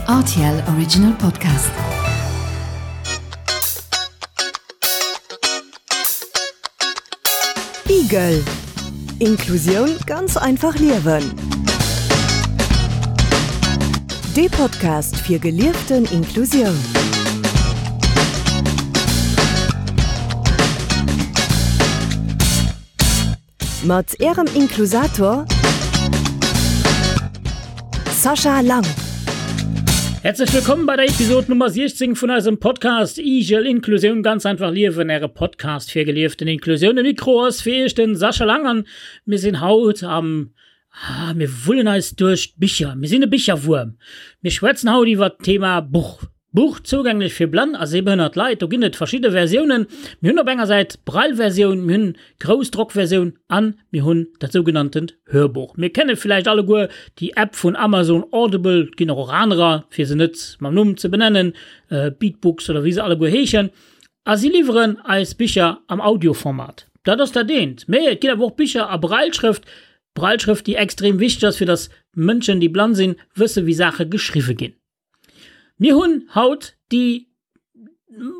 RTL Original Podcast. Igel Inklusioun ganz einfach liewen. Dee Podcast fir gelieften Inklusioun. Mat Ärem Inklusator Sascha Lang. Herzlech wëllkomm bei der Episode Nummer 16 vun eisem Podcast Igel Inklusioun ganz einfach liewen, äre Podcast fir gelieften Inklusioun. Um Mikro ass fir iech den Sascha Lang an mir sinn haut am ah, mir wullen eis duerch d'Bicher. Mir sinn e Bicherwuerm. Mir schwätzen haut iwwert d'Thema Buch. Buch zougänglech fir blann a sehbehënnert Leit. Do ginn et verschidde Versiounen. Mir hunn op enger Säit d'Braille-Versioun, mir hunn d'Groussdrockversioun an mir hunn dat sougenanntent Hörbuch. Mir kenne villäicht alleguer déi App vun Amazon Audible, et ginn och och anerer, fir se net mam Numm ze benennen, Beatbooks oder wéi se alleguer heeschen. A si liwweren eis Bicher am Audioformat. Dat ass dat eent. Mee et ginn awer och Bicher a Brailleschrëft, Brailleschrëft, déi extrem wichteg ass, fir datt Mënschen, déi blann sinn, wësse wéi Saache geschriwwe ginn. Mir hunn haut déi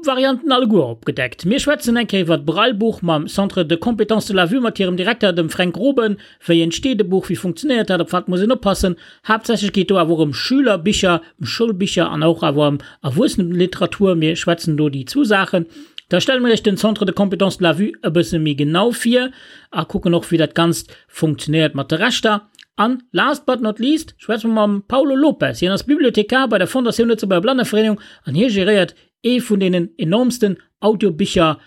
Varianten alleguer opgedeckt. Mir schwätzen eng Kéier iwwer d'Braillebuch mam Centre de compétences de la vue mat hirem Direkter, dem Fränk Groben. Wéi entsteet e Buch, wéi funktionéiert dat, op wat muss een oppassen? Haaptsächlech geet do awer och ëm Schülerbicher, ëm Schoulbicher an och awer ëm Erwuesseneliteratur. Mir schwätzen do déi zwou Saachen. Da stelle mir iech den Centre de compétences de la vue e bësse méi genau vir a kucken och, wéi dat Ganzt funktionéiert mat de Rechter. An last but not least schwätze mer mam Paulo Lopes. Hien ass Bibliothekar bei der Fondatioun Lëtzebuerger Blannevereenigung an hie geréiert ee vun deenen enormsten Audiobicher,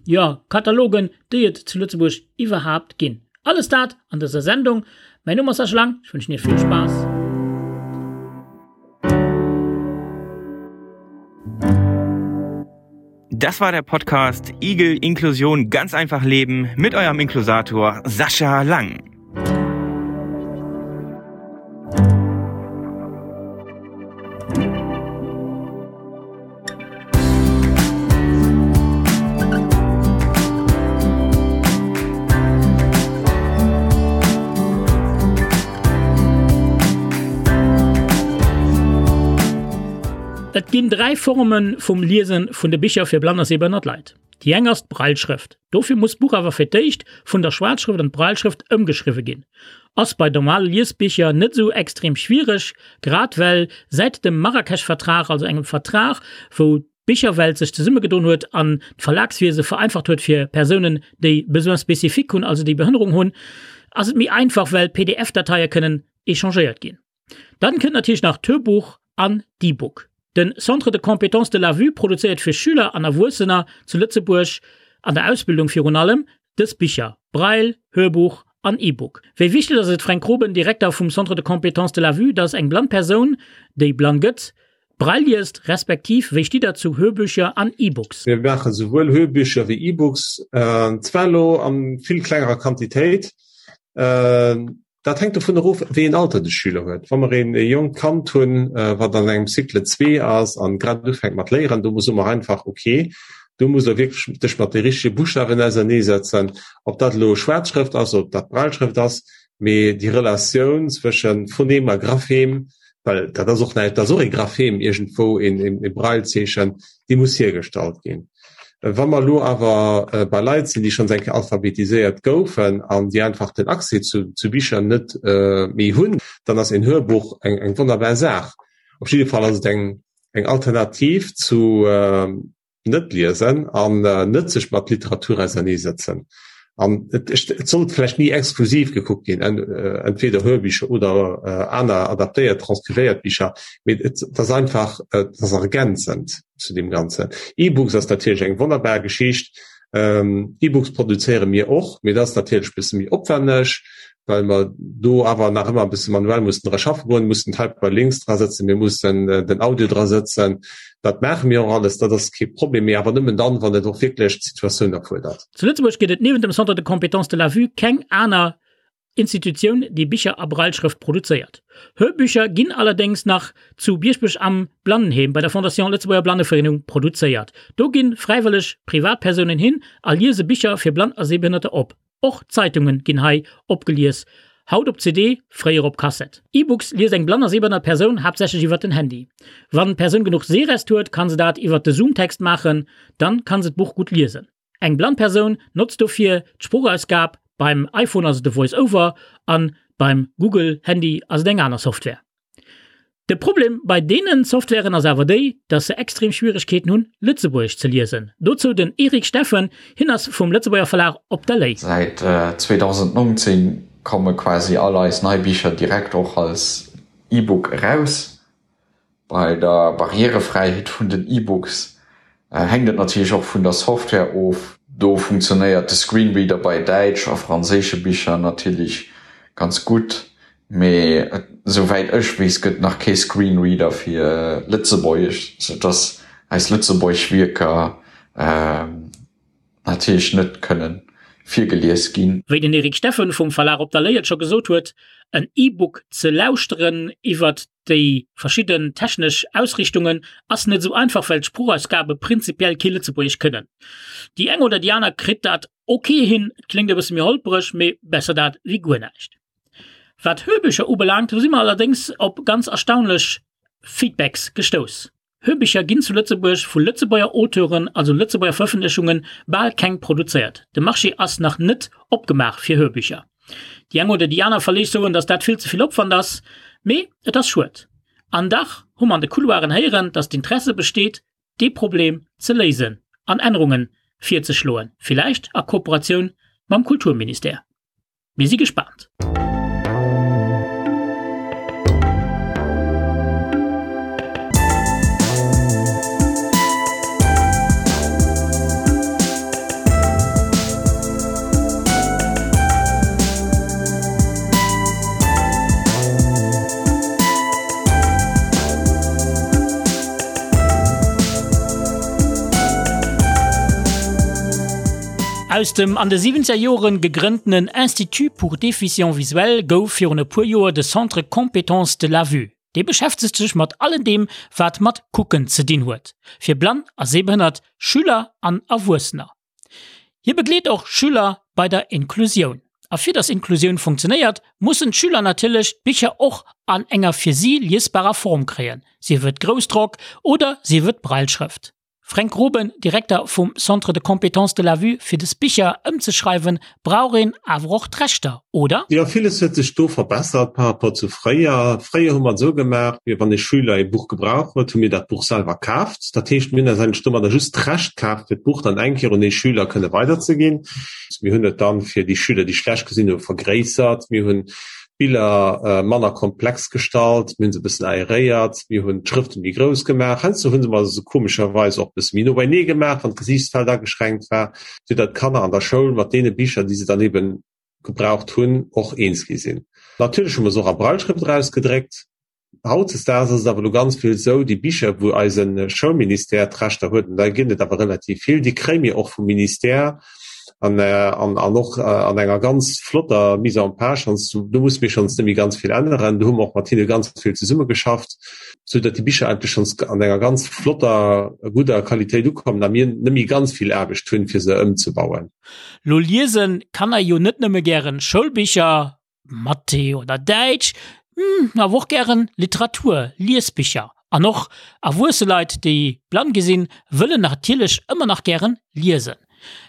jo, Katalogen, déi et zu Lëtzebuerg iwwerhaapt ginn. Alles dat an dëser Sendung. Mäin Numm ass Sascha Lang, ech wënschen Iech vill Spaass. Das war der Podcast Igel Inklusion ganz einfach leben mit eurem Inklusator Sascha Lang. Et ginn 3 Forme vum Liese vun de Bicher fir blann a sehbehënnert Leit. Déi eng ass d'Brailleschrëft. Dofir muss d'Buch awer fir d'éischt vun der Schwaarzschrëft an d'Brailleschrëft ëmgeschriwwe ginn. Ass bei normale Liesbicher net esou extrem schwiereg, grad well säit dem Marrakesch-Vertrag, also engem Vertrag wou d'Bicherwelt sech zesummegedoen huet an d'Verlagswiese vereinfacht huet fir Persounen déi Besoins spécifiques hunn, also déi Behënnerung hunn, ass et méi einfach well PDF-Dateie kënnen échangéiert ginn. Dann kënnt natierlech nach d'Hörbuch an d'E-Book. Den Centre de compétences de la vue produzéiert fir Schüler an Erwuessener zu Lëtzebuerg, an der Ausbildung virun allem, dës Bicher, Braille, Hörbuch an E-Book. Wéi wichteg ass et, Fränk Groben, Direkter vum Centre de compétences de la vue, dass eng blann Persoun, déi blann gëtt, Braille liest, respektiv wéi stitt der zu Hörbücher an E-Books? Mir maache souwuel Hörbücher wéi E-Books, zwar elo a vill klengerer Quantitéit. Dat hänkt dovun erof, wéi een Alter de Schüler huet. Wa mer een jonkt Kand hunn, wat an engem Cycle 2 ass an grad ufänkt mat léieren, do soe mer einfach, ok, do muss der wierklech dech mat de richtege Buschtawen auserneesetzen, ob dat elo Schwaarzschrëft ass, ob dat Brailleschrëft ass, mee déi Relatioun zwësche Phonem a Graphem, well dat ass och näischt, dat ass och ee Graphem iergendwou, een Braillezeechen, déi muss hiergestallt ginn. Wa mer elo awer bei Leit sinn, déi schonns eng Kéier alphabetiséiert goufen an déi einfach den Accès zu, zu Bicher net méi hunn, dann ass een Hörbuch eng, eng wonnerbar Saach. Op jidde Fall ass et eng, eng Alternativ zu net liesen an net sech mat Literatur auserneesetzen. An et, et sollt vläicht ni exklusiv gekuckt ginn, entweder Hörbicher oder aner adaptéiert, transkrivéiert Bicher, mee et ass einfach, et ass ergänzend zu deem Ganzen. E-Books ass natierlech eng wonnerbar Geschicht. E-Books produzéiere mir och, mee dat ass natierlech e bësse méi opwänneg, well mer do awer nach ëmmer e bësse manuell mussen dra schaffe goen, mussen d'Hyperlinks dra sëtzen, mir mussen den Audio dra sëtzen. Dat maache mir och alles, dat ass kee Problem, mee awer nëmmen dann, wann et och wierklech d'Situatioun erfuerdert. Zu Lëtzebuerg gëtt et niewent dem Centre de compétences de la vue keng aner Institutioun, déi Bicher a Brailleschrëft produzéiert. Hörbücher ginn allerdéngs nach zu Bieschbech am Blannenheem bei der Fondation Lëtzebuerger Blannevereenung produzéiert. Do gi fräiwëlleg Privatpersounen hin a liese Bicher fir Blann a Sehbehënnerter op. Och Zeitunge ginn hei opgelies. Haut op CD, fréier op Kassett. E-Books liest eng blann a sehbehënnert Persoun haaptsächlech iwwert den Handy. Wann d'Persoun genuch Sehrest huet, kann se dat iwwert de Zoomtext maachen, dann kann se d'Buch gutt liesen. Eng blann Persoun notzt dofir d'Sproochausgab, beim iPhone ass et de VoiceOver an beim Google Handy ass et eng aner Software. De Problem bei deenen Softwaren ass awer déi, dass se extrem Schwieregkeeten hunn, Lëtzebuergesch ze liesen. Dozou den Eric Steffen, hien ass vum Lëtzebuerger Verlag Op der Lay. Säit 2019 komme quasi all eis nei Bicher direkt och als E-Book eraus. Bei der Barrierefräiheet vun den E-Books hänkt et natierlech och vun der Software of. Do funktionéiert de Screenreader bei däitsch a franséische Bicher natierlech ganz gutt, mee esouwäit ech weess gëtt nach kee Screenreader fir Lëtzebuergesch, sou dass eis lëtzebuergesch Wierker natierlech net kënnen virgelies ginn. Wéi den Eric Steffen vum Verlag Op der Lay et scho gesot huet, en E-Book ze lauschteren iwwert déi verschidden technesch Ausrichtungen ass net esou einfach, well d'Sproochausgabe prinzipiell kee Lëtzebuergesch kënnen. Déi eng oder déi aner kritt dat ok hin, et kléngt e bësse méi holpereg, mee besser dat wéi guer näischt. Wat Hörbücher ubelaangt, do si mer allerdéngs op ganz erstaunlech Feedbacks gestouss. Hörbicher ginn zu Lëtzebuerg vu Lëtzebuerger Auteuren, also Lëtzebuerger Verëffentlechungen, bal keng produzéiert. De Marché ass nach net opgemaach fir Hörbücher. Déi eng oder déi aner Verleeg soen, datt dat vill ze vill Opwand ass, mee et ass schued. An dach hu mer an de Couloiren héieren, datt d'Interesse besteet, dee Problem ze léisen an Ännerunge virzeschloen, villäicht a Kooperatioun mam Kulturministère. Mir si gespaant! Aus dem an de siwwenzeger Joren gegrënntenen Institut pour déficients visuels gouf virun e puer Joer de Centre Compétences de la Vue. Dee beschäftegt sech mat allen deem, wat mat Kucken ze dinn huet, fir blann a sehbehënnert Schüler an Erwuessener. Hie begleet och Schüler bei der Inklusioun. A fir dass Inklusioun funktionéiert, mussen d'Schüler natierlech d'Bicher och an enger fir si liesbarer Form kréien, sief et Groussdrock oder sief et Brailleschrëft. Fränk Groben, Direkter vum Centre de compétences de la vue, Fir des Bicher ëmzeschreiwen, brauch een awer och d'Rechter, oder? Jo, villes huet sech do verbessert par rapport zu fréier. Fréier hu mer et esou gemaach, mir, wann ee Schüler ee Buch gebraucht huet, hu mir dat Buch selwer kaaft. Dat heescht, mir hunn eis eigentlech domadder just d'Recht kaaft, fir d'Buch dann eng Kéier un ee Schüler kënne weiderzeginn. Mir hunn et dann fir déi Schüler, déi schlecht gesinn hu, vergréissert. Mir hunn d'Biller manner komplex gestallt, mir hunn se e bëssen aeréiert, mir hunn d'Schrëfte méi grouss gemaach, heiansdo hu se mer se komescherweis och e bësse méi no beinee gemaach, wann d'Gesiichtsfeld ageschränkt war, fir datt d'Kanner an der Schoul mat deene Bicher, déi se dann ebe gebraucht hunn, och eens gi sinn. Natierlech hu mer se och a Brailleschrëft erausgedréckt. Hautdesdaags ass et awer elo ganz vill esou, déi Bicher, wou eise Schoulministère d'Rechter huet, an där ginn et awer relativ vill, déi kréie mir och vum Ministère an, an, an och an enger ganz flotter Mise en page. Schonns, do musse mir schonns net méi ganz vill änneren. Do hu mer och mat hinne ganz vill zesummegeschafft, sou datt déi Bicher eigentlech schonns an enger ganz flotter, gudder Qualitéit ukommen a mir net méi ganz vill Aarbecht hunn, fir se ëmzebauen. Lo liesen Kanner jo net nëmme gären Schoulbicher, Mathé oder Däitsch, awer och gären Literatur, Liesbicher. An och erwuesse Leit, déi blann gi sinn, wëllen natierlech ëmmer nach gären liesen.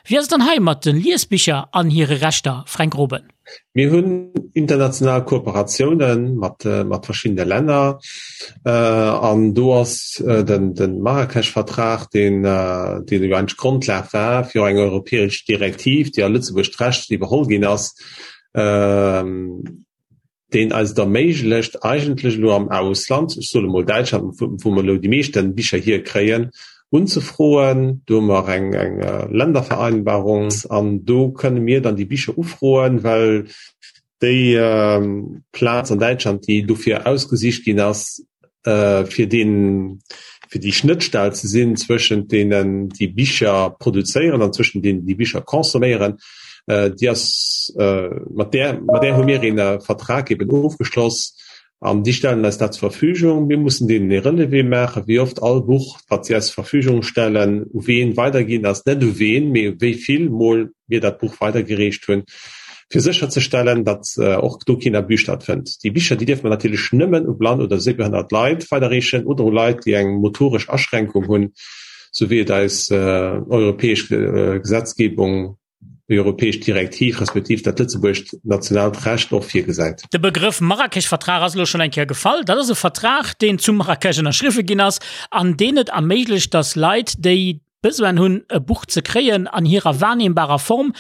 Wéi ass et dann hei mat de Liesbicher an hire Rechter, Fränk Groben? Mir hunn international Kooperatioune mat mat verschiddene Länner an do ass den de Marrakesch-Vertrag, deen deen jo eigentlech d'Grondlag war fir och eng europäesch Direktiv, déi a Lëtzebuerg d'Recht iwwerholl ginn ass, deen eis et erméiglecht, eigentlech elo am Ausland, ech soen emol Däitschland, wou mer elo déi meeschte Bicher hierkréien, unzefroen. Do hu mer eng Ländervereinbarung an do kënne mir dann déi Bicher ufroen, well déi Plaz an Däitschland, déi dofir ausgesicht ginn ass, fir deen, fir déi Schnëttstell ze sinn zwëschent deenen, déi Bicher produzéieren an zwëschent deenen, déi Bicher consomméieren, déi ass, mat där, mat där hu mir een Vertrag eben ofgeschloss an déi stellen eis dat zur Verfügung. Mir mussen deenen ee Relevé maachen, wéi oft all Buch, wat si eis zur Verfügung stellen, u ween weiderginn ass, net u ween, mee wéi vill Mol mir dat Buch weidergereecht hunn. fir sécherzestellen, datt och do keen Abus stattfënnt. Déi Bicher, déi dierfe mer natierlech nëmmen u blann oder séibehënnert Leit weiderreechen oder u Leit, déi eng motoresch Aschränkung hunn, sou wéi et eis europäesch Gesetzgebung, déi europäesch Direktiv respektiv dat lëtzebuergescht nationaalt Recht och virgesäit. De Begrëff Marrakesch-Vertrag ass elo schonn eng Kéier gefall. Dat ass e Vertrag, deen zu Marrakesch ënnerschriwwe ginn ass an deen et erméiglecht, datt Leit, déi Besoin hunn, e Buch ze kréien an hirer wahrnehmbarer Form,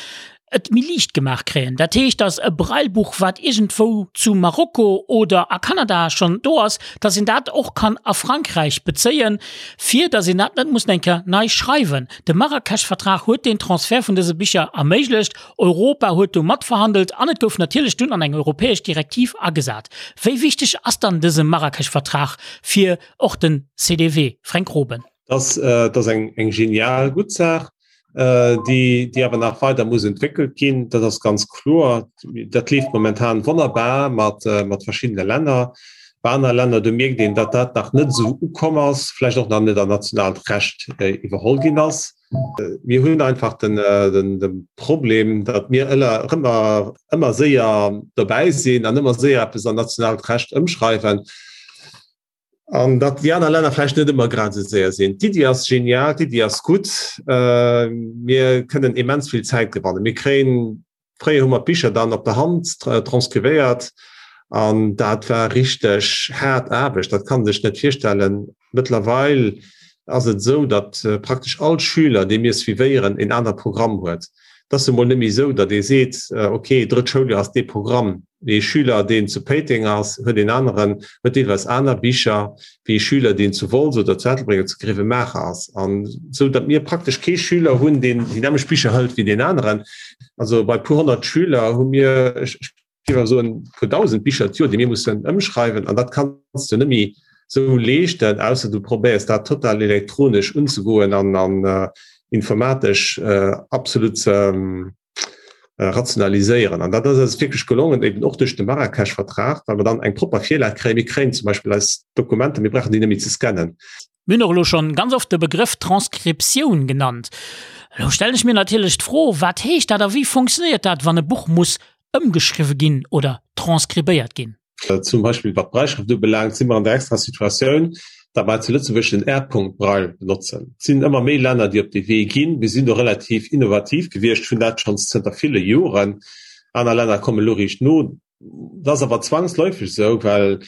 et méi liicht gemaach kréien. Dat heescht, datt e Braillebuch, wat iergendwou zu Marokko oder a Kanada schonn do ass, datt een dat och kann a Frankräich bezéien, fir datt een dat net muss eng Kéier nei schreiwen. De Marrakesch-Vertrag huet deen Transfert vun dëse Bicher erméiglecht. Europa huet do matverhandelt an et gouf natierlech dunn an eng europäesch Direktiv agesat. Wéi wichteg ass dann dëse Marrakesch-Vertrag fir och den CDW, Fränk Groben? Das, äh, das eng, eng genial gutt Saach, äh, déi, déi awer nach weider muss entwéckelt ginn. Dat ass ganz kloer. Dat leeft momentan wonnerbar mat, äh, mat verschiddene Länner. Bei aner Länner, do mierkt een, datt dat nach net esou ukomm ass, vläicht och nach net an nationaalt Recht äh, iwwerholl ginn ass. Mir hunn einfach den, äh, den, den Problem, datt mir ëller, ëmmer, ëmmer séier dobäi sinn an ëmmer séier eppes an nationaalt Recht ëmschreiwen. An datt déi aner Länner vläicht net ëmmer grad esou séier sinn. D'Iddi ass genial, d'Iddi ass gutt. Mir kënnen immens vill Zäit gewannen. Mir kréien, fréier hu mer d'Bicher dann op der Hand transkrivéiert an dat war richteg haart Aarbecht, dat kann ee sech net virstellen. Mëttlerweil ass et esou, datt praktesch all Schüler, dee mir suivéieren, en anere Programm huet. Et ass emol net méi esou, datt ee seet, ok, drëtt Schouljoer ass dee Programm. Ee Schüler, deen zu Péiteng ass, huet een aneren, huet deelweis aner Bicher wéi ee Schüler, deen zu Wolz oder zu Ettelbréck oder zu Grevenmacher ass. An esou, datt mir praktesch kee Schüler hunn, deen déi nämmlecht Bicher hëlt wéi deen aneren. Also bei puer 100 Schüler hu mir, ech géif awer soen, puer 1.000 Bicher d'Joer, déi mir mussen ëmschreiwen. An dat kanns du net méi esou leeschten, ausser du probéiers dat total elektronesch unzegoen an an informatesch absolut ze rationaliséieren. An dat ass eis wierklech gelongen, eben och duerch de Marrakesch-Vertrag, well mer dann eng propper Virlag kréien. Mir kréien zum Beispill eis Dokumenter, mir brauchen déi net méi ze scannen. Mir hunn och elo schonn ganz oft de Begrëff Transkriptioun genannt. Elo stellen ech mir natierlech d'Fro, Wat heescht dat a wéi funktionéiert dat, wann e Buch muss ëmgeschriwwe ginn oder transkribéiert ginn? Zum Beispill wat d'Brailleschrëft ubelaangt, si mer an der extra Situatioun, datt mer zu Lëtzebuerg den R-Punkt-Braille benotzen. Et sinn ëmmer méi Länner, déi op dee Wee ginn. Mir sinn do relativ innovativ gewiescht, hunn dat schonns zënter ville Joren. Aner Länner kommen elo riicht no. Dat ass awer zwangsläufeg esou, well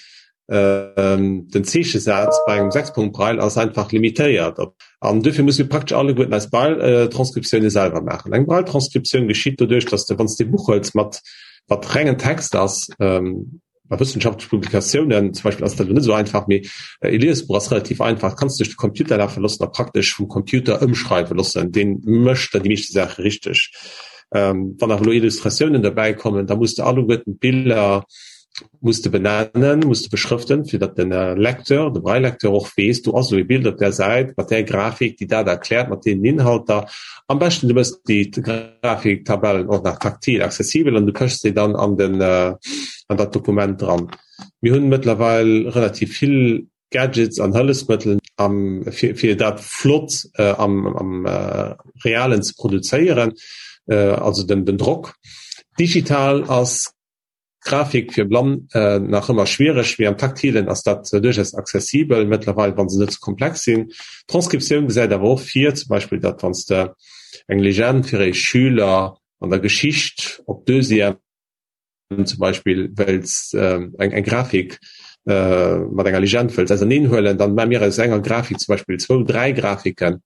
den Zeechesaz bei engem Sechspunkt-Braille ass einfach limitéiert. An duerfir musse mir praktesch alleguerten eis Braille-Transkriptioune selwer maachen. Eng Braille-Transkriptioun geschitt doduerch, datt s de, wann s de e Buch huels mat wat rengen Text ass, bei wëssenschaftleche Publikatiounen zum Beispill ass dat elo net esou einfach, mee e Liesbuch ass relativ einfach, dat kanns du duerch de Computer lafe loossen a praktesch vum Computer ëmschreiwe loossen, dee mécht dann déi meeschte Saache richteg. Wann awer elo Illustratiounen derbäi kommen, da muss de alleguerten d'Biller muss de benennen, muss de beschrëften, fir datt den Lecteur, de Braille-Lecteur och weess, do ass elo e Bild op där Säit mat där Grafik, déi dat erkläert, mat deenen Inhalter. Am beschten du méchs déi Grafiktabellen och nach taktil accessibel an du pëchs déi dann an den an dat Dokument dran. Mir hunn mëttlerweil relativ vill Gadgets an Hëllefsmëttel am fir fir dat flott am am Realen ze produzéieren, also den den Drock. Digital ass Grafik fir Blann nach ëmmer schwiereg, mee am Taktilen ass dat duerchaus accessibel mëttlerweil, wa se net ze komplex sinn. D'Transkriptioun gesäit awer och vir, zum Beispill, datt wann s de eng Legend fir ee Schüler an der Geschicht op Deuxième zum Beispill wëlls, eng Grafik mat enger Legend wëlls auserneen huelen, dann maache mir aus enger Grafik zum Beispill zwou, dräi Grafiken.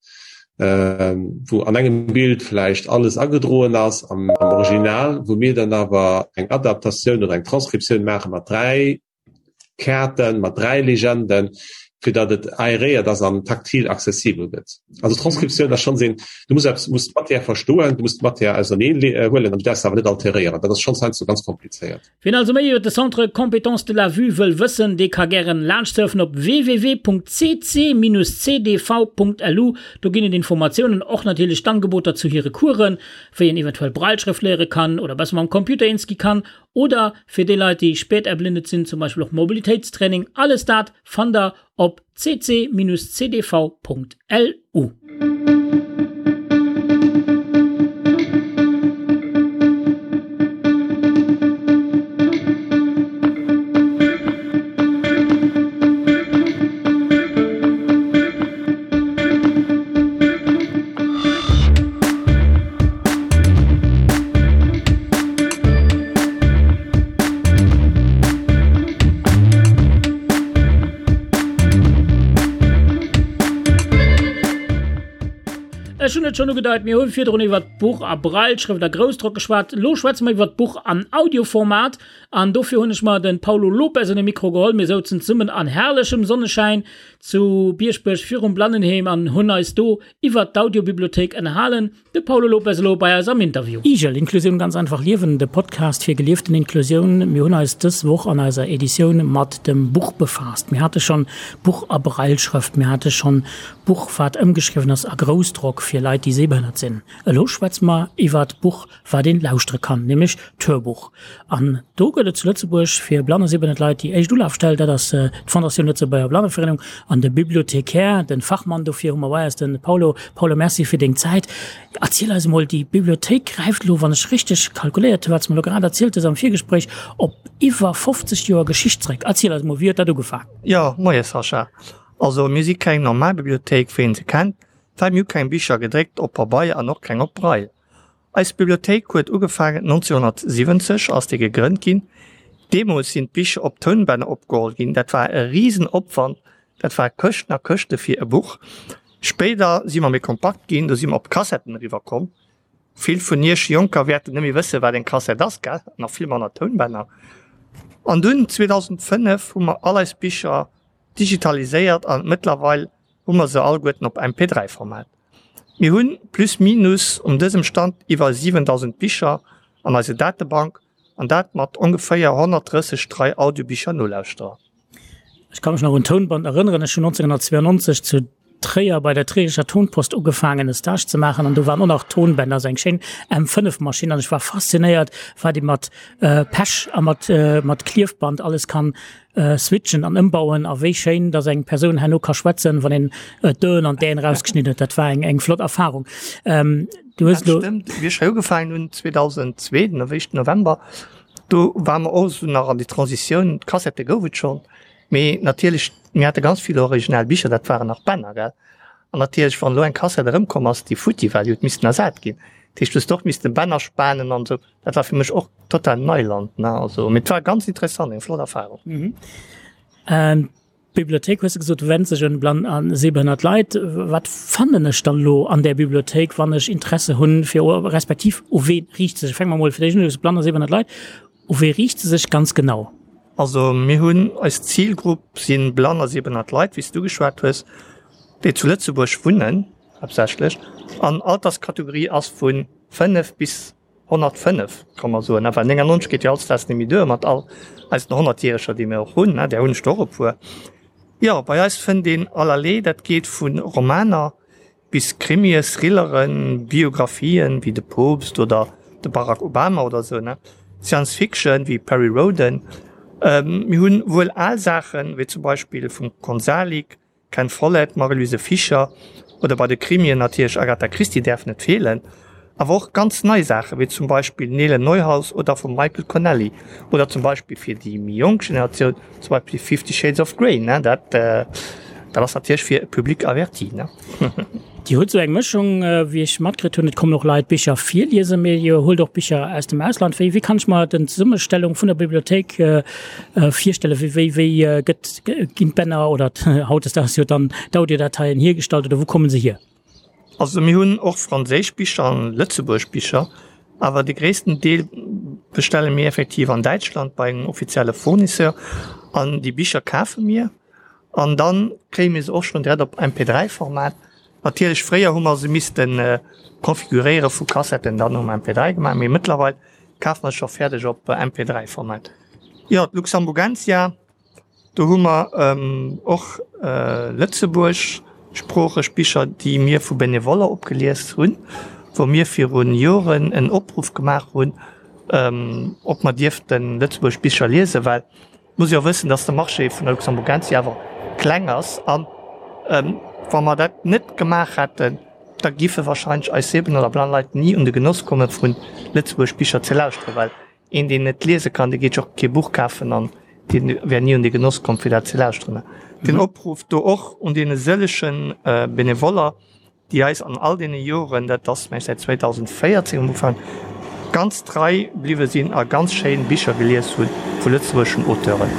wou an engem Bild vläicht alles agedroen ass am Original, wou mir dann awer eng Adaptatioun oder eng Transkriptioun maache mat 3 Kaarten, mat 3 Legenden, fir datt et aeréiert ass an taktil accessibel gëtt. Also Transkriptioun ass schonns een, du muss eppes, muss d'Matière verstoen, du muss d'Matière auserneen huelen an du däerfs se awer net alteréieren. Dat ass schonns heiansdo ganz komplizéiert. Wien also méi iwwer de Centre Compétences de la Vue wëll wëssen, dee ka gären laanschtsurfen op www.cc-cdv.lu. Do ginn et Informatiounen, och natierlech d'Angeboter zu hire Coursen, wéi een eventuell Brailleschrëft léiere kann oder besser mam Computer eens gi kann oder fir déi Leit, déi späterblindet sinn, zum Beispill och Mobilitéitstraining. Alles dat fannt der op cc-cdv.lu. Ech hunn et schonn ugedeit, mir hu virdrun iwwert d'Buch a Brailleschrëft a Groussdrock geschwat. Elo schwätze mer iwwert d'Buch an Audioformat. An dofir hunn ech mer de Paulo Lopes un de Mikro geholl. Mir souzen zesummen an herrlechem Sonneschäin zu Bieschbuerg virum Blannenheem an hunn eis do iwwert d'Audiobibliothéik ënnerhalen. De Paulo Lopes elo bei eis am Interview. Igel, Inklusioun ganz einfach liewen, de Podcast fir gelieften Inklusioun. Mir hunn eis dës Woch an eiser Editioun mat dem Buch befaasst. Mir hate schonn Buch a Brailleschrëft, mir hate schonn Buch wat ëmgeschriwwen ass a Groussdrock fir Leit déi sehbehënnert sinn. Elo schwätze mer iwwert Buch wat een lauschtere kann, nämlech d'Hörbuch. An do gëtt et zu Lëtzebuerg fir blann a sehbehënnert Leit déi éischt Ulafstell, dat ass d'Fondatioun Lëtzebuerger Blanneverenung an de Bibliothecaire, de Fachmann dofir hu mer bei eis, de Paulo. Paulo, Merci fir deng Zäit. Erziel eis emol, déi Bibliothéik gräift elo, wann ech richteg kalkuléiert hunn, wat s de mer elo grad erzielt hues am Virgespréich, op iwwer 50 Joer Geschicht zréck. Erziel eis emol, wéi huet dat ugefaangen? Jo, moie Sascha. Also mir si keng normal Bibliothéik wéi een se kennt, well mir hu keng Bicher gedréckt op Pabeier an och keng op Braille. Eis Bibliothéik huet ugefaangen 1970 ass déi gegrënnt ginn. Deemools sinn d'Bicher op Tounbänner opgeholl ginn. Dat war e risen Opwand, dat war Këschten a Këschte fir e Buch. Spéider si mer méi kompakt ginn, do si mer op Kassetten eriwwer komm. Vill vun iech Jonker wäerten net méi wëssen, wat eng Kassett ass, gell? Nach vill manner Tounbänner. An dunn 2005 hu mer all eis Bicher digitaliséiert an mëttlerweil hu mer se alleguerten op MP3-Format. Mir hunn plus minus um dësem Stand iwwer 7.000 Bicher an eiser Datebank an dat mat ongeféier 130 trei Audiobicher-Nolauschterer. Ech ka mech nach un d'Tounband erënneren. Ech hunn 1992 zu Tréier bei der Trierischer Tonpost ugefaangen e Stage ze maachen an do waren och nach Tonbänder, esou eng schéin M5 Maschinn an ech war faszinéiert wat ee mat Pech a mat mat Kliefband alles kann switchen an ëmbauen a wéi schéin dass eng Persoun herno ka schwätzen wann een d'Öen an d'Äen erausgeschnidden huet. Dat war eng eng flott Erfahrung. Du hues elo. Dat stëmmt, wéi ech hei ugefaangen hunn 2002, den éischten November, do ware mer och esou nach an déi Transitioun, d'Kassette gouf et schonn, Mee natierlech, mir hate ganz vill original Bicher, dat waren nach Bänner, gell? An natierlech, wann elo eng Kassett erëmkomm ass, déi futti war, déi huet missten ersat ginn. Dat heescht, du hues och missten Bänner spanen an esou. Dat war fir mech och total Neiland, ne? Also, mee et war ganz interessant, eng flott Erfahrung. D'Bibliothéik, hues de gesot, wennt sech un blann a sehbehënnert Leit. Wat fannen ech dann elo an där Bibliothéik, wann ech Interesse hunn, fir, respektiv u wee riicht se sech? Fänke mer emol fir d'éischt un, du hues blann a sehbehënnert Leit. U wee riicht se sech ganz genau? Also mir hunn, eis Zilgrupp si blann a sehbehënnert Leit, wéi s du geschwat hues, déi zu Lëtzebuerg wunnen haaptsächlech an Alterskategorie ass vu 5 bis 105, ka mer soen. Enfin 99 geet jo hautdesdaags net méi duer mat all eisen Honnertjäreger, déi mir och hunn, där hunn ech der och e puer. Jo, bei eis fënnt een allerlee, dat geet vu Romaner Bis Krimie, Thrilleren, Biographien wéi de Poopst oder de Barack Obama oder sou, ne? Science Fiction wéi Perry Rhodan. Mir hunn wuel al Saachen, wéi zum Beispill vum Konsalik, Ken Follett, Marie-Louise Fischer oder bei de Krimien natierlech Agatha Christie däerf net feelen. Awer och ganz nei Saachen, wéi zum Beispill Nele Neuhaus oder vum Michael Connelly oder zum Beispill fir déi méi jonk Generatioun zum Beispill Fifty Shades of Grey, ne, dat dat ass natierlech fir e Public averti, ne. Dir hutt esou eng Mëschung, wéi ech matkritt hunn, et kommen och Leit Bicher virliesen, mee Dir huelt och Bicher aus dem Ausland. Wéi wéi kann ech mer den Zesummestellung vun der Bibliothéik virstellen? Wéi wéi wéi gëtt ginn d'Bänner oder hautdesdaags jo dann d'Audiodateien hiergestallt oder wou komme se hier? Also mir hunn och franséisch Bicher an lëtzebuergesch Bicher, awer de gréissten Deel bestelle mir effektiv an Däitschland bei engem offizielle Fournisseur an déi Bicher kafe mir an dann kréie mir se och schonn direkt op MP3-Format. Natierlech fréier hu mer se misste konfiguréiere vu Kassetten dann um MP3 gemaach, mee mëttlerweil kafe mer se scho fäerdeg op MP3-Format. Jo, d'Luxemburgensia. Do hu mer och lëtzebuergeschsproocheg Bicher, déi mir vu Benevoller opgelies hunn, wou mir viru Joren en Opruff gemaach hunn, ob mer dierfte lëtzebuergesch Bicher liesen, well et muss ee jo wëssen, datt de Marché vun der Luxemburgensia awer kleng ass. A wa mer dat net gemaach hätten, da giffe wahrscheinlech eis sehbehënnert oder blann Leit ni un de Genoss komme vu lëtzebuergesch Bicher ze lauschteren, well Een deen net liese kann, dee geet jo och kee Buch kafen an dee wär ni un de Genoss komm fir dat ze lauschteren. Den Opruff do och un deene sëllege Benevoller, déi eis an all deene Joren, dat ass mengen ech säit 2014 um Ufank, ganz trei bliwwe sinn a ganz schéin Bicher gelies hu vu lëtzebuergeschen Auteuren.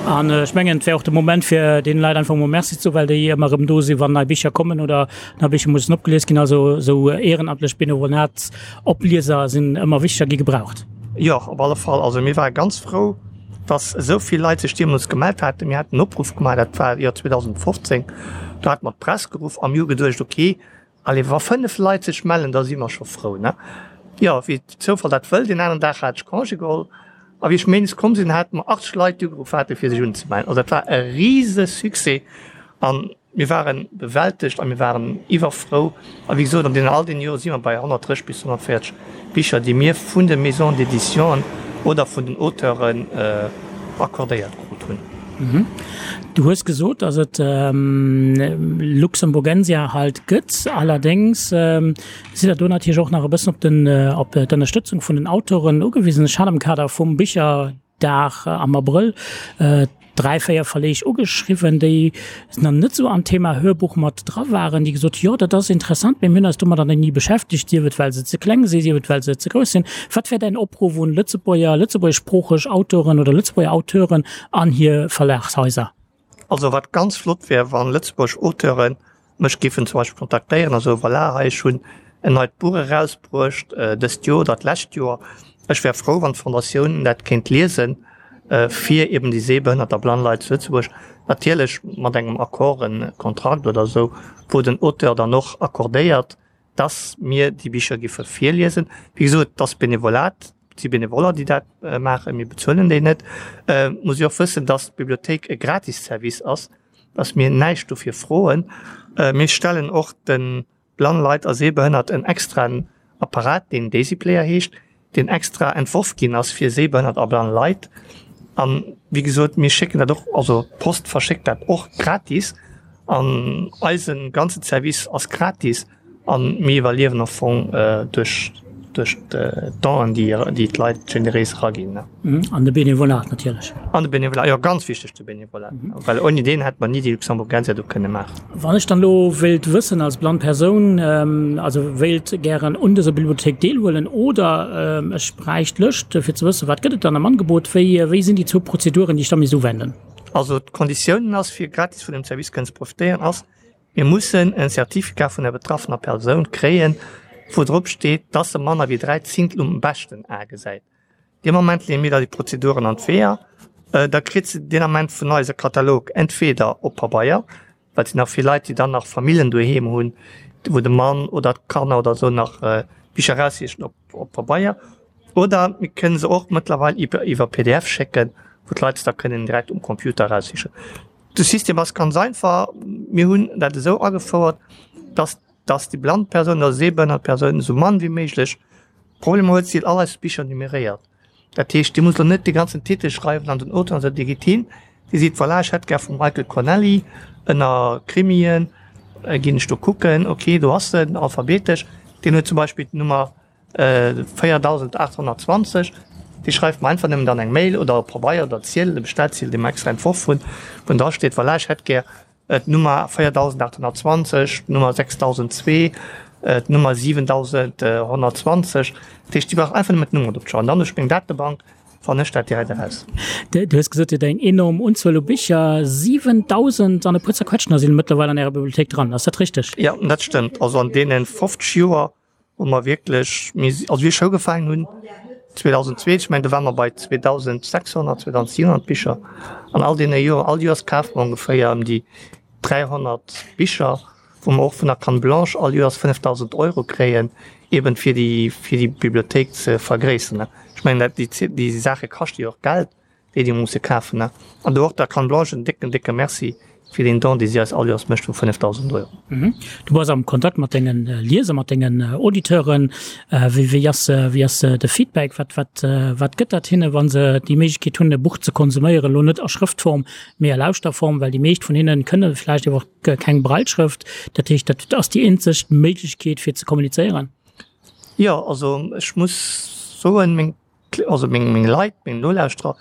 An ech mengen, et wär och de Moment, fir deene Leit einfach emol Merci ze soen, well déi ëmmer erëm do sinn, wann nei Bicher kommen oder nei Bicher mussen opgelies ginn. Also esou ehrenamtlech Benevolatsoplieser sinn ëmmer wichteg a gi gebraucht. Jo, op alle Fall. Also mir ware ganz frou, dass esou vill Leit sech deemools gemellt haten. Mir haten en Opruff gemaach, dat war Joer 2015, do hate mer d'Press geruff a mir hu geduecht, okay, Allez, wa 5 Leit sech mellen, da si mer scho frou, ne? Jo, wéi de Zoufall dat wëll, deen aneren Dag hat ech Congé geholl a wéi ech méindes komm sinn, hate mer 80 Leit, déi ugeruff haten, fir sech unzemellen. Also dat war e rise Succès a mir ware bewältegt a mir waren iwwerfrou. A wéi gesot, an deenen all deene Jore si mer bei 130 bis 140 Bicher, déi mir vun de Maisons d'éditionen oder vun den Auteuren accordéiert krut hunn. Du hues gesot, datt et Luxemburgensia halt gëtt. Allerdéngs sidd Der do natierlech och nach e bëssen op den, op d'Ënnerstëtzung vun den Autoren ugewisen. Ech hat am Kader vum Bicherdag am Abrëll 3, 4 Verleeg ugeschriwwen, déi nach net esou am Thema Hörbuch mat dra waren, déi gesot hu, jo, dat ass interessant, mee mir hunn eis domadder nach ni beschäftegt, sief et well se ze kleng sinn, sief et well se ze grouss sinn. Wat wär däin Opruff un Lëtzebuerger, lëtzebuergeschsproocheg Autoren oder Lëtzebuerger Auteuren an hir Verlagshaiser? Also wat ganz flott wär, wann lëtzebuergesch Auteuren mech géifen zum Beispill kontaktéieren a soen, voilà, hei ech hunn en neit Buch erausbruecht dëst Joer oder d'lescht Joer, ech wär frou wann d'Fondatioun dat kéint liesen, fir eben déi sehbehënnert a blann Leit zu Lëtzebuerg, natierlech mat engem Accord, en Kontrakt oder esou, wou den Auteur dann och accordéiert, dass mir déi Bicher giffe virliesen. Wéi gesot, et ass Benevolat, et si Benevoller, déi dat maachen, mir bezuelen déi net. Et muss ee och wëssen, dass d'Bibliothéik e Gratisservice ass, dass mir näischt dofir froen. Mir stellen och de blann Leit a Sehbehënnert en extraen Apparat, deen Daisy Player heescht, deen extra entworf ginn ass fir sehbehënnert a blann Leit. An wéi gesot, mir schécken dat och, also d'Post verschéckt dat och gratis an eise ganze Service ass gratis an mir iwwerliewen am Fong duerch duerch d'Donen, déi déi d'Leit generéis eraginn. An de Benevolat natierlech. An de Benevolat, jo ganz wichteg de Benevolat, well ouni deen hätte mer ni déi Luxemburgensia do kënne maachen. Wann ech dann elo wéilt wëssen als blann Persoun, also wéilt gären un dëser Bibliothéik deelhuelen oder ech bräicht d'Lëscht fir ze wëssen, wat gëtt et dann am Angebot, wéi wéi sinn déi zwou Prozeduren, déi ech da misst uwenden? Also d'Konditiounen ass, fir gratis vun dem Service kënnen ze profitéieren, ass, mir mussen en Certificat vun der betraffener Persoun kréien, wou drop steet, dass se manner wéi 3 Zintel um beschten A gesäit. Dee Moment leeë mir da déi Prozeduren an d'Weeër. Da kritt se deen Ament vun eis e Katalog, entweder op Pabeier, well et sinn nach vill Leit, déi dann nach Famillen doheem hunn, wou de Mann oder d'Kanner oder esou nach Bicher eraussichen op op Pabeier, oder mir kënne se och mëttlerweil iwwer iwwer pdf schécken, wou d'Leit se da kënnen direkt um Computer eraussichen. De System ass ganz einfach, Mir hunn dat esou agefouert, dass dass déi blann Persoun oder sehbehënnert Persoun esou mann wéi méiglech Problemer huet. Si huet all eis Bicher numeréiert. Dat heescht, Dir musst elo net de ganzen Titel schreiwen an den Auteur an esou. Dir gitt hin, Dir seet, voilà, ech hätt gär vum Michael Connelly ënner Krimien, ginn ech do kucken, okay, do ass en, alphabetesch. Deen huet zum Beispill d'Nummer 4820. Dir schreift mer einfach nëmmen dann eng Mail oder e Pabeier oder Ziedel, e Bestellziedel, dee mer extra entworf hunn, wou dra steet, voilà, ech hätt gär d'Nummer 4820, d'Nummer 6002, d'Nummer 7120. Dat heescht, Dir braucht einfach nëmmen d'Nummer drop ze schreiwen. Dann duerch meng Datebank fannen ech dat direkt eraus. Du hues gesot, Dir hutt eng enorm Unzuel u Bicher, 7.000 an e puer zerquetschter sinn mëttlerweil an Ärer Bibliothéik dran. Ass dat richteg? Jo, dat stëmmt. Also an deene 50 Joer wou mer wierklech, mir si, also wéi ech ugefaangen hunn 2002, ech mengen do ware mer bei 2.600, 2.700 Bicher an all deene Joren, all Joers kafe mer ongeféier ëm déi 300 Bicher, wou mer och vun der Canne Blanche all Joers 5.000 Euro kréien, eben fir déi, fir déi Bibliothéik ze vergréisseren. Ech mengen dat, déi, déi Saache kaschte jo och Geld. déi déi musse kafen. An do och der Canne Blanche en décken, décke Merci fir deen Don, dee si eis all Joers mécht vu 5.000 Euro. Du bass am Kontakt mat denge Lieser, mat dengen Auditeuren. Wéi, wéi ass, wéi ass de Feedback? Wat, wat, wat gëtt dat hinne, wa se déi Méiglechkeet hunn, e Buch ze konsuméieren, elo net a Schrëftform, mee a Lauschterform, well déi meescht vun hinne kënne vläicht iwwer och keng Brailleschrëft. Dat heescht, dat ass déi eenzeg Méiglechkeet, fir ze kommunizéieren? Jo, also ech muss soen, meng also meng, meng Leit, meng Nolauschterer,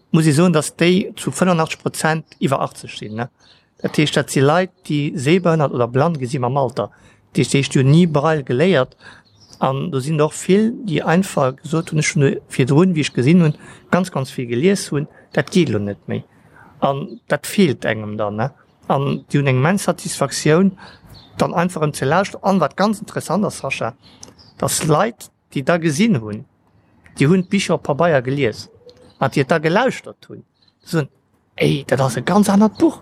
muss ee soen, datt déi zu 85 Prozent iwwer 80 sinn. Ne? Dat heescht, dat si Leit, déi sehbehënnert oder blann gi si mam Alter. Dat heescht, déi hunn ni Braille geléiert. An do sinn och vill, déi einfach gesot hunn, ech hunn virdrun, wéi ech gesinn hunn, ganz, ganz vill gelies hunn, dat geet elo net méi. An dat feelt engem dann, ne? An déi hunn eng immens Satisfaktioun, dann einfach erëm ze lauschteren. An wat ganz interessant ass, Sascha, dass Leit, déi da gesinn hunn, déi hunn d'Bicher op Pabeier gelies, an déi et da gelauschtert hunn, soen, Ey, dat ass e ganz anert Buch,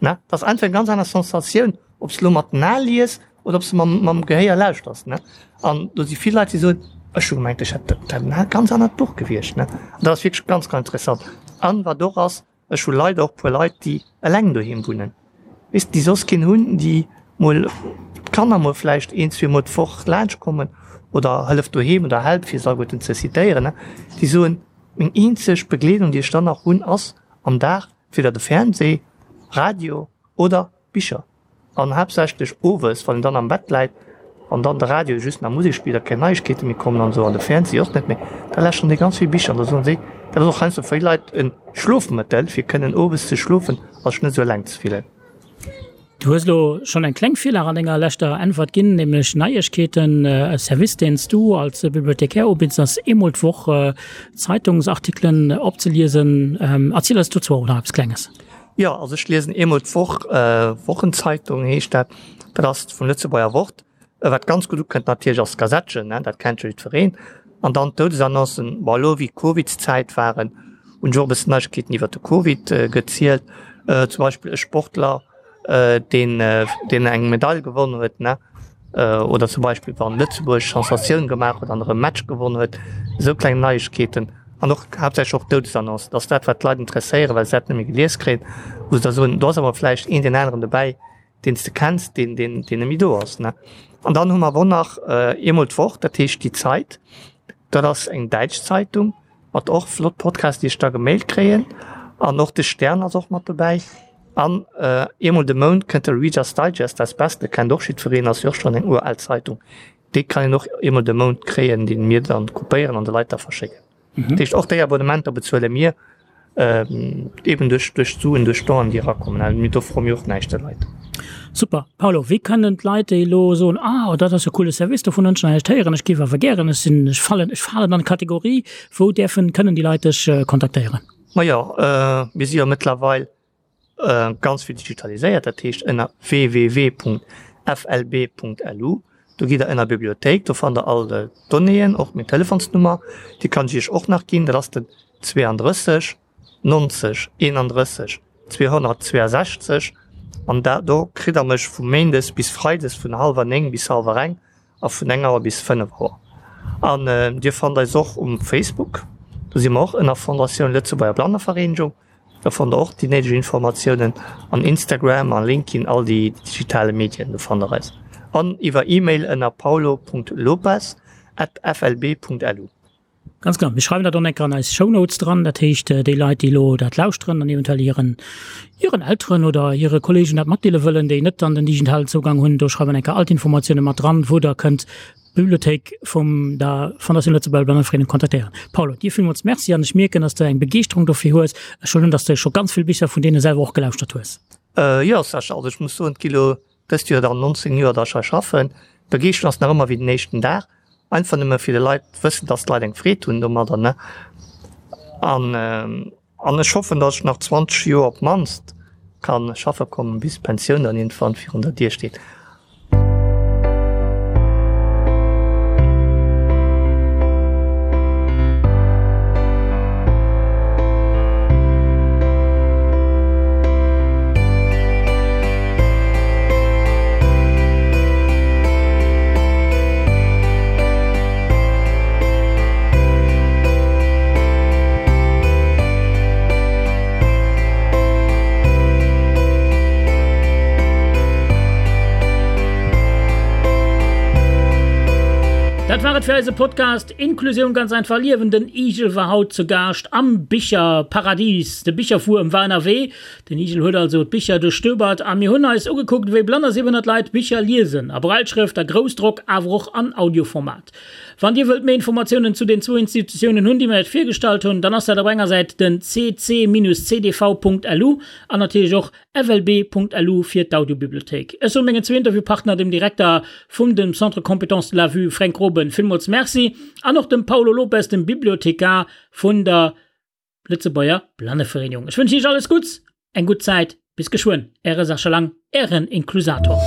ne? Dat ass einfach eng ganz aner Sensatioun, ob s de elo mat den Ae lies oder ob s de mam, mam Gehéier lauschters, ne? An do si vill Leit, déi soen, Ech hu gemengt, ech hätt dat e ganz anert Buch gewiescht, ne? An dat ass wierklech ganz, ganz interessant. An wat och ass, Ech hu leider och puer Leit, déi eleng doheem wunnen, weess de, déi soss keen hunn, déi mol d'Kanner mol vläicht een, zweemol d'Woch laanscht kommen oder Hëllef doheem oder Help, fir se alleguerten ze citéieren, ne, déi soen, Meng eenzeg Begleedung, déi ech dann nach hunn, ass am Dag entweder de Fernseh, Radio oder Bicher. An haaptsächlech owes, wann een dann am Bett läit an dann de Radio just nach Musek spillt a keng Neiegkeete méi kommen an esou an de Fernseh och net méi, da lauschteren déi ganz vill Bicher an da soen si, dat ass och heiansdo fir vill Leit e Schlofmëttel, fir kënnen owes ze schlofen a sech net esou eleng ze fillen. Du hues elo schonn eng kleng Virlag an denger leschter Äntwert ginn, nämlech Neiegkeeten. E Service, deen s du als Bibliothecaire ubidds, ass eemol d'Woch Zeitungsartikelen opzeliesen. Erziel eis dozou och nach eppes Klenges. Jo, also ech liesen eemol d'Woch, Wochenzeitung heescht dat, dat ass vum Lëtzebuerger Wort. Wat ganz gutt ukënnt natierlech ass d'Gazettchen, dat kennt jo jiddwereen. An dann d'Doudesannoncen, bon elo wéi d'Covidszäit waren, hunn ech och e bëssen Neiegkeeten iwwert de Covid gezielt. Zum Beispill e Sportler, deen deen eng Medail gewonn huet, ne, oder zum Beispill wann Lëtzebuerg Sensatioun gemaach huet an erëm Match gewonn huet, esou kleng Neiegkeeten an och haaptsächlech och Doudesannoncen, dat ass dat wat d'Leit interesséieren, well se dat net méi gelies kréien, wou se da soen, do ass awer vläicht een deen aneren dobäi, deen s de kenns, deen deen deen net méi do ass, ne. An dann hu mer awer och nach eemol d'Woch, dat heescht Die Zeit, dat ass eng däitsch Zeitung, Mat och flott Podcasts déi ech da gemailt kréien an och de Stern ass och mat dobäi an eemol de Mount kënnt de Reader's Digest, dat Beste kennt och jiddwereen, ass jo och schonn eng ural Zeitung, déi kann een och eemol de Mount kréien, déi mir dann kopéieren an de Leit da verschécken. Dat heescht och déi Abonnementer bezuele mir. Eben duerch duerch d'Suen, duerch d'Donen, déi erakommen. Also mir do froe mir och näischt de Leit. Super. Paolo, wéi kënnen d'Leit, déi elo soen, Ah, dat ass e coole Service, dovun hunn ech nach näischt héieren, ech géif awer gären, ech sinn, ech fallen, ech falen an d'Kategorie, wou däerfen, kënnen déi Leit dech kontaktéieren? Majo, mir si jo mëttlerweil ganz vill digitaliséiert, dat heescht ënner www.flb.lu, do gitt der ënner Bibliothéik, do fannt der all d'Donnéeën, och meng Telefonsnummer, déi kann ech iech och nach ginn, dat ass den 32 90 31 262 an da do kritt der mech vu méindes bis freides vun hallwer 9 bis hallwer eng a vun eng Auer bis 5 Auer. An dir fannt eis och um Facebook, do si mer och ënner Fondatioun Lëtzebuerger Blannevereenegung. Do fannt der och déi néideg Informatiounen an Instagram a LinkedIn, all déi digitale Medien, do fannt der eis. An iwwer E-Mail ënner paulo.lopes at flb.lu. Ganz genau. Mir schreiwen dat och enker an eis Shownotes dran. Dat heescht, déi Leit, déi elo dat lauschteren an eventuell hiren, hiren Elteren oder hire Kolleegen dat matdeele wëllen, déi net dann den digitalen Zougang hunn, do schreiwen enker all d'Informatioune mat dran, wou der kënnt d'Bibliothéik vum der Fondation Lëtzebuerger Blannevereenigung kontaktéieren. Paulo, dir villmools Merci an ech mierken, dass de eng Begeeschterung dofir hues. Ech huelen un, dass de scho ganz vill Bicher vun deene selwer och gelauschtert hues. Jo, Sascha, also ech muss soen, et gi lo dëst Joer dann 19 Joer, dass ech hei schaffen. D'Begeeschterung ass nach ëmmer wéi den éischten Dag, einfach nëmme fir de Leit wëssen, dass d'Leit eng Freed hunn domadder, ne? An An ech hoffen, dass ech nach 20 Joer op d'mannst ka schaffe kommen, bis d'Pensioun dann iergendwann virun der Dier steet. Dat war et fir eise Podcast Inklusioun ganz einfach liewen. Den Igel war haut zu Gaascht am Bicherparadies. De Bicherwuerm war ënnerwee. Den Igel huet also d'Bicher duerchstöbert a mir hunn eis ugekuckt, wéi blann a 700 Leit Bicher liesen, a Brailleschrëft, a Groussdrock, awer och an Audioformat. Wann Dir wëllt méi Informatiounen zu den zwou Institutiounen hunn, déi mir Iech virgestallt hunn, dann ass dat op enger Säit den cc-cdv.lu an natierlech och flb.lu fir d'Audiobibliothéik. Ech soe mengen zwou Interviewpartner, dem Direkter vum dem Centre Compétences de la Vue Fränk Groben, villmools Merci an och dem Paulo Lopes, dem Bibliothekar vun der Lëtzebuerger Blannevereenigung. Ech wënschen Iech alles Gutts. Eng gutt Zäit, bis geschwënn, Äre Sascha Lang, Ären Inklusator.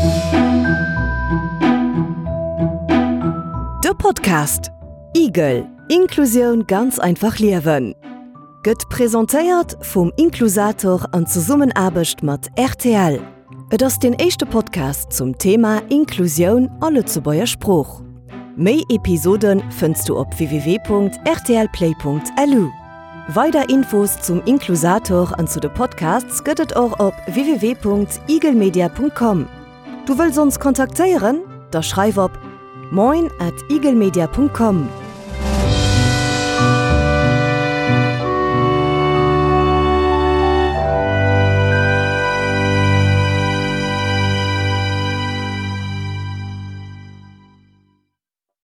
De Podcast Igel, Inklusioun ganz einfach liewen gëtt presentéiert vum Inklusator an Zesummenaarbecht mat rtl. Et ass deen éischte Podcast zum Thema Inklusioun a Lëtzebuerger Sprooch. Méi Episode fënns du op www.rtlplay.lu. Weider Infos zum Inklusator an zu de Podcasts gëtt et och op www.igelmedia.com. Du wëlls ons kontaktéieren? Da schreif op moin at igelmedia.com.